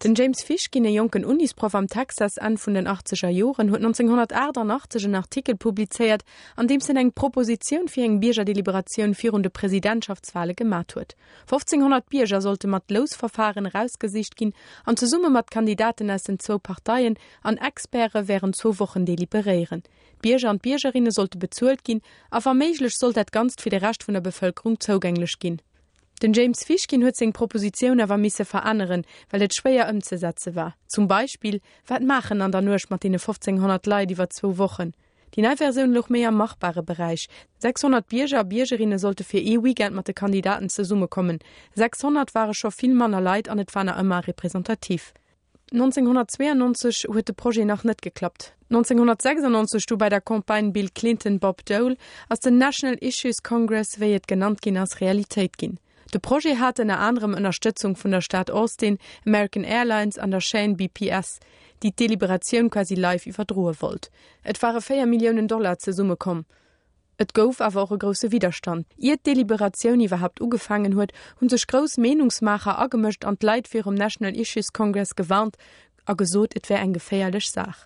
Den James Fishkin, e jonken Unisproff am Texas Enn vun den achtzeger Joren, huet 1988 en Artikel publizéiert, an deems en eng Propositioun fir eng Biergerdeliberatioun virun de Presidentschaftswale gemat huet. 1.500 Bierger sollte mat Lousverfaren erausgesicht ginn an zesumme mat Kandidaten aus den zwou Parteien an Experte wärend zwou Wochen deliberéieren. D'Bierger an d'Biergerinne sollte bezuelt ginn a wa méiglech sollt dat Ganzt fir de Rescht vun der Bevëlkerung zougänglech ginn. Den James Fishkin huet seng Propositioun awer misse veränneren, well et schwéier ëmzesetze war. Zum Beispill, Wat maachen an der Nuecht mat deene 1.500 Leit iwwer zwou Wochen? Déi nei Versioun louch méi am machbare Beräich, 600 Bierger a Biergerinne sollte fir ee Weekend mat de Kandidaten zesummekommen. 600 ware scho vill manner Leit an et war nach ëmmer representativ. 1992 huet de Projet nach net geklappt. 1996, du bei der Campagne Bill Clinton-Bob Dole, ass den National Issues Congress, wéi et genannt ginn ass, Realitéit ginn. De Projet hat ënner anerem Ënnerstëtzung vun der Stad Austin, American Airlines an der Chaîne BPS, déi d'Deliberatioun quasi live iwwerdroe wollt. Et ware 4 Milliounen Dollar zesummekomm. Et gouf awer och e grousse Widderstand. Ier d'Deliberatioun iwwerhaapt ugefaangen huet, hu sech grouss Meenungsmaacher agemëscht an d'Leit virum National Issues Congress gewarnt a gesot, et wär eng geféierlech Saach.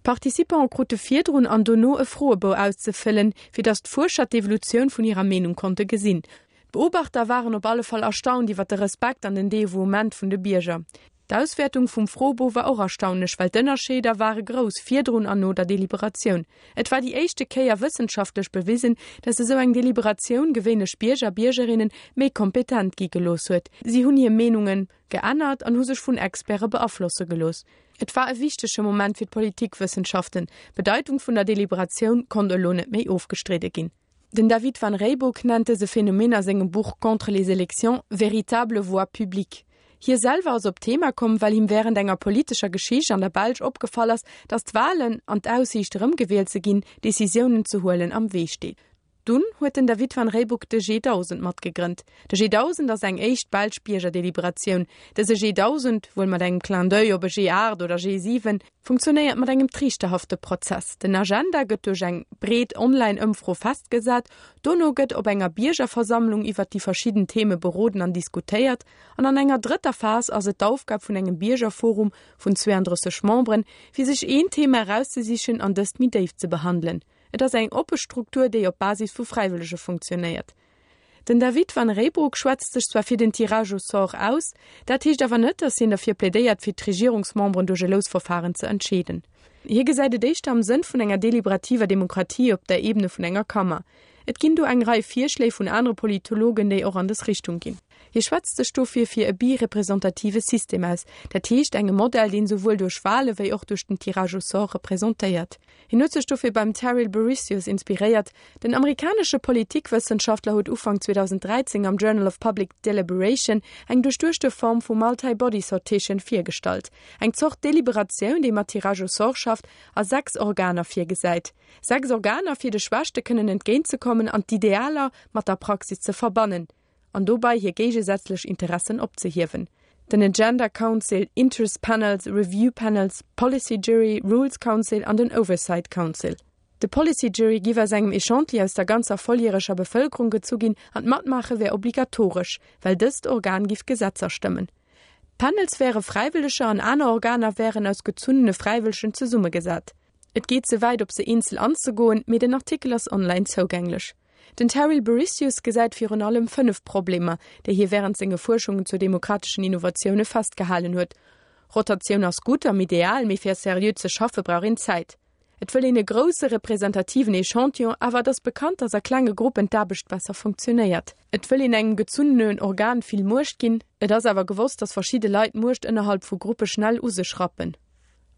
D'Participante krute virdrun an dono e Froebou auszefëllen, fir datt d'Fuerscher d'Evolutioun vun hirer Meenung konnte gesinn. D'Beobachter waren op alle Fall erstaunt iwwer de Respekt an den Devouement vun de Bierger. D'Auswäertung vum Froebou war och erstaunlech, well d'Ënnerscheeder ware grouss virdrun an no der Deliberatioun. Et war déi éischte Kéier wëssenschaftlech bewisen, datt esou eng Deliberatioun gewéinlech Bierger a Biergerinne méi kompetent gi gelooss huet. Si hunn hir Meenunge geännert an hu sech vun Experte beaflosse gelooss. Et war e wichtege Moment fir d'Politikwëssenschaften. D'Bedeitung vun der Deliberatioun konnt elo net méi ofgestridde ginn. Den David Van Reybrouck nennt dëse Phänomen a sengem Buch Contre les élections véritable voix publique. Hie selwer ass op d'Thema komm, well him wärend enger politescher Geschicht an der Belsch opgefall ass, datt d'Walen an d'Aussiicht erëmgewielt ze ginn, Decisiounen ze huelen am Wee steet. Dunn huet den David Van Reybrouck de G1000 matgegrënnt. De G1000 ass eng éischt belsch Biergerdeliberatioun. Dëse G1000, wuel mat engem Clin d'oeil op e G8 oder G7, Funktionéiert mat engem triichterhafte Prozess. Den Agenda gëtt duerch eng breet Online-Ëmfro festgesat, dono gëtt op enger Biergerversammlung iwwert déi verschidden Theme beroden an diskutéiert an an enger drëtter Phas ass et d'Aufgab vun engem Biergerforum vun 32 Memberen, fir sech een Thema erauszesichen an dëst méi déif ze behandelen. Et ass eng oppe Struktur, déi op Basis vu Fräiwëllege funktionéiert. Den David Van Reybrouck schwätzt sech zwar fir den Tirage au sort aus, dat heescht awer net, datt hien derfir plädéiert, fir d'Regierungsmemberen duerch e Lousverfahren ze entscheeden. Hie gesäit et éischter am Sënn vun enger deliberativer Demokratie op der Ebene vun enger Kammer. Et ginn do eng Rei Virschléi vun anere Politologen, déi och an dës Richtung ginn. Hie schwätzt sech dofir fir e bi-representative System aus, dat heescht engem Modell, deen souwuel duerch Wale wéi och duerch den Tirage au sort representéiert. Hien huet sech dofir beim Terril Bouricius inspiréiert. Den amerikanesche Politikwëssenschaftler huet Ufank 2013 am Journal of Public Deliberation eng duerchduechte Form vu Multi-Body Sortition virgestallt, eng Zort Deliberatioun, déi mat Tirage au sort schafft a 6 Organer virgesäit. 6 Organer, fir de Schwächte kënnen entgéintzekommen an d'Idealer mat der Praxis ze verbannen. an dobei hir géigesätzlech Interessen opzehiewen, den Agenda Council, Interest Panels, Review Panels, Policy Jury, Rules Council an den Oversight Council. De Policy Jury giff aus engem Echantilli aus der ganzer volljäreger Bevëlkerung gezu ginn an d'Matmaache wär obligatoresch, well dëst Organ giff Gesetzer stëmmen. D'Panels wäre Fräiwëlleger an aner Organer wären aus gezunnene Fräiwëllegen zesummegesat. Et geet ze wäit op se eenzel anzegoen, mee den Artikel ass online zougänglech. Den Terril Bouricius gesäit virun allem 5 Problemer, déi hie wärend senge Fuerschungen zu demokrateschen Innovatioune festgehalen huet, Rotatioun ass gutt am Ideal, mee fir seriö ze schaffe brauch een Zäit. Et wëll een e grousse representativen Echantillon, awer et ass bekannt, datt a klenge Gruppen d'Aarbecht besser funktionéiert. Et wëll een engem gezunnenen Organ vill Muecht ginn, et ass awer gewosst, datt verschidde Leit Muecht ënnerhalb vu Gruppe schnell u sech rappen.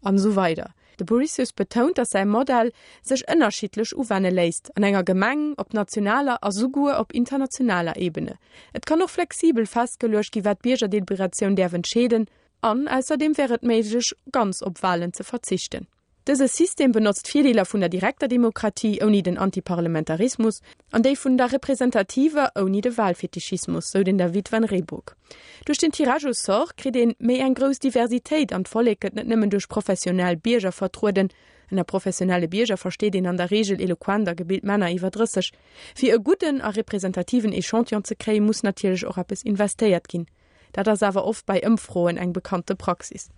An esou weider. De Bouricius betount, datt säi Modell sech ënnerschiddlech uwenne léisst, an enger Gemeng, op nationaler a souguer op internationaler Ebene. Et kann och flexibel festgeluecht gi wat d'Biergerdeliberatioun däerf entscheeden. An ausserdeem wär et méiglech, ganz op Walen ze verzichten. Dëse System benotzt d'Virdeeler vun der direkter Demokratie ouni den Antiparlementarismus an déi vun der representativer ouni de Wahlfetischismus, sou den David Van Reybrouck. Duerch den Tirage au sort kritt een méi eng grouss Diversitéit an d'Vollek gëtt net nëmmen duerch professionell Bierger vertrueden, ënner professionelle Bierger versteet een an der Reegel eloquent a gebilt Männer iwwer 30. Fir e gudden a representativen Echantillon ze kréien, muss natierlech och eppes investéiert ginn. Dat ass awer oft bei Ëmfroen eng bekannte Praxis.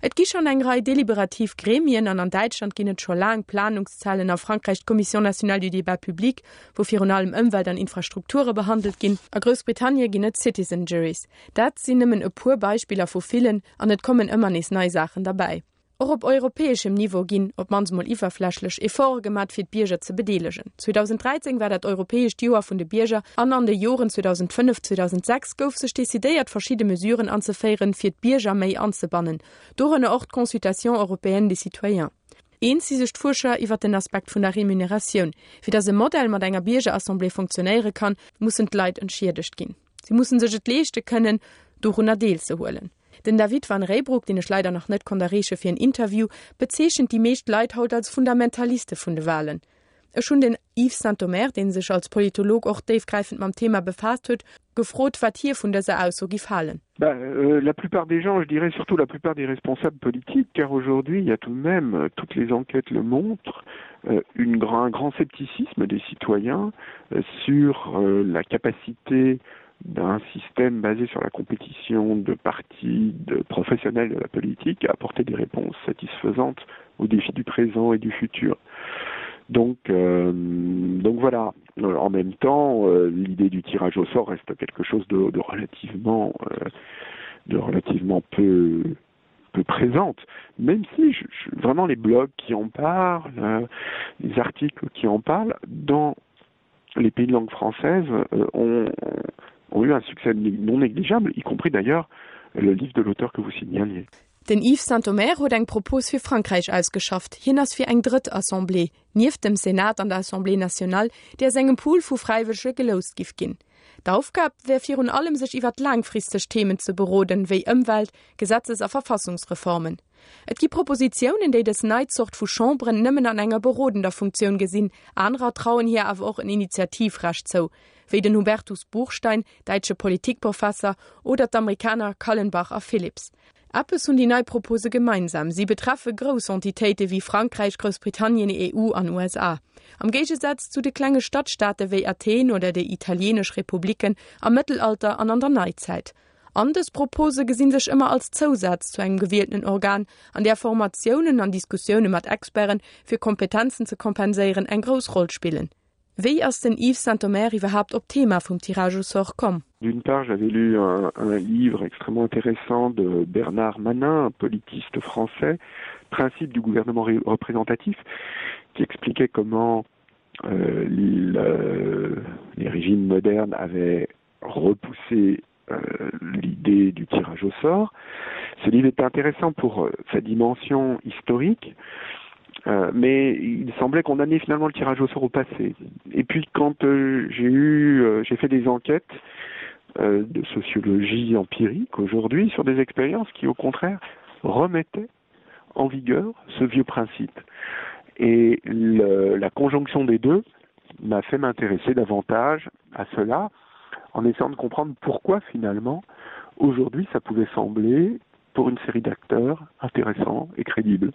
Et gi schonn eng Rei deliberativ Gremien an an Däitschland ginn et scho laang Planungszellen, a Frankräich d'Commission nationale du débat public, wou virun allem Ëmwelt an Infrastrukture behandelt ginn. A Groussbritannie ginn et Citizen Juries. Dat sinn nëmmen e puer Beispiller vu villen an et kommen ëmmer nees nei Saachen derbäi. Och op europäeschem Niveau ginn, op d'mannst mol iwwerflächlech, Efforte gemat fir d'Bierger ze bedeelegen. 2013 war dat europäescht Joer vun de Bierger an an de Joren 2005, 2006 gouf sech decidéiert verschidde Mesuren anzeféieren, fir d'Bierger méi anzebannen, dorënner och d'Consultation européenne des citoyens. Eens si sech d'Fuerscher iwwer den Aspekt vun der Remuneratioun. Fir datt e Modell mat enger Biergerassemblée funktionéiere kann, mussen d'Leit entschiedegt ginn. Si mussen sech et leeschte kënnen, dorunner deelzehuelen. Den David Van Reybrouck, deen ech leider nach net konnt erreeche fir en Interview, bezeechent déi meescht Leit haut als Fundamentaliste vun de Walen. Ech hunn den Yves Sintomer, dee sech als Politolog och déifgräifend mam Thema befaasst huet, gefrot, wat hie vun dëser Ausso giff halen. Ben, euh, la plupart des gens, je dirais surtout la plupart des responsables politiques, car aujourd'hui, il y a tout de même, euh, toutes les enquêtes le montrent, euh, une grand, un grand scepticisme des citoyens euh, sur euh, la capacité d'un système basé sur la compétition de partis de professionnels de la politique à apporter des réponses satisfaisantes aux défis du présent et du futur. Donc, euh, donc voilà euh, en même temps euh, l'idée du tirage au sort reste quelque chose de, de relativement euh, de relativement peu peu présente même si je, je, vraiment les blogs qui en parlent euh, les articles qui en parlent dans les pays de langue française euh, ont, ont eu un succès non négligeable y compris d'ailleurs le livre de l'auteur que vous signaliez. Den Yves Sintomer huet eng Propos fir Frankräich ausgeschafft. Hien ass fir eng drëtt Assemblée, nieft dem Senat an der Assemblée nationale, déi aus engem Pool vu Fräiwëllege geloust giff ginn. D'Aufgab wär virun allem sech iwwert laangfristeg Themen ze beroden, wéi Ëmwelt-, Gesetzes a Verfassungsreformen. Et gi Propositiounen, déi dës nei Zort vu Chamberen nëmmen an enger berodender Funktioun gesinn, anerer trauen hir awer och en Initiativrecht zou, wéi den Hubertus Buchstein, däitsche Politikprofesser, oder d'Amerikaner Kallenbach a Phillips. Eppes hunn déi nei Propose gemeinsam, Si betreffe grouss Entitéite wéi Frankräich, Groussbritannien, EU an USA. Am Géigesaz zu de klenge Stadstaate wéi Athen oder déi italieenesch Republiken am Mëttelalter an an der Neizäit. An dës Propose gesi sech ëmmer als Zousaz zu engem gewieltenen Organ, an där Formatiounen an Diskussioune mat Experten, fir Kompetenzen ze kompenséieren, eng grouss Roll spillen. Wéi ass den Yves Sintomer iwwerhaapt op d'Thema vum Tirage au sort komm? D'une part, j'avais lu un, un livre extrêmement intéressant de Bernard Manin, un politiste français, Principe du gouvernement représentatif, qui expliquait comment euh, le, les régimes modernes avaient repoussé euh, l'idée du tirage au sort. Ce livre était intéressant pour euh, sa dimension historique, euh, mais il semblait qu'on amenait finalement le tirage au sort au passé. Et puis quand euh, j'ai eu euh, j'ai fait des enquêtes euh, de sociologie empirique aujourd'hui sur des expériences qui au contraire remettaient en vigueur ce vieux principe. Et le, la conjonction des deux m'a fait m'intéresser davantage à cela en essayant de comprendre pourquoi finalement aujourd'hui ça pouvait sembler pour une série d'acteurs intéressants et crédibles.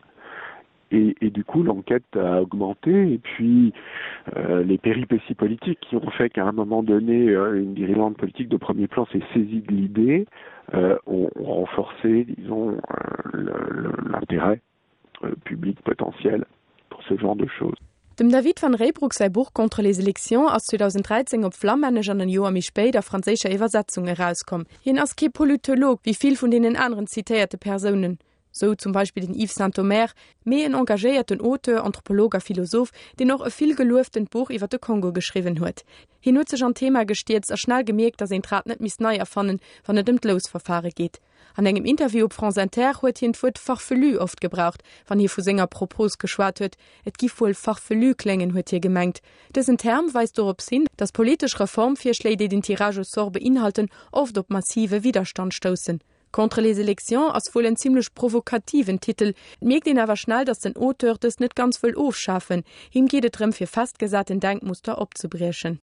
Et, et du coup l'enquête a augmenté et puis euh, les péripéties politiques qui ont fait qu'à un moment donné euh, une dirigeante politique de premier plan s'est saisie de l'idée euh, ont, ont renforcé disons euh, l'intérêt euh, public potentiel pour ce genre de choses. Dem David Van Reybrouck säi Buch Contre les élections ass 2013 op Flammännesch an en Joer méi spéit a franséischer Iwwersetzung erauskomm. Hien ass kee Politolog, wéi vill vun deenen aneren zitéierte Persounen, sou zum Beispill den Yves Sintomer, mee en engagéierten Auteur, Anthropolog a Philosoph, deen och e vill gelueftent Buch iwwer de Kongo geschriwwen huet. Hien huet sech an d'Thema gestierzt a schnell gemierkt, datt een d'Rad net misst nei erfannen, wann et ëm d'Lousverfare geet. An engem Interview op France Inter huet hien d'Wuert farfelu oft gebraucht, wann hie vu senger Propos geschwat huet. Et giff wuel farfelu kléngen, huet hie gemengt. Dësen Term weist dorops hin, datt politesch Reformvirschléi, déi den Tirage au sort beinhalten, oft op massive Widderstand stoussen. Contre les élections ass wuel en zimmlech provokativen Titel. Et mierkt een awer schnell, datt den Auteur dëst net ganz wëll ofschafen. Him geet et drëm, fir festgesaten Denkmuster opzebriechen.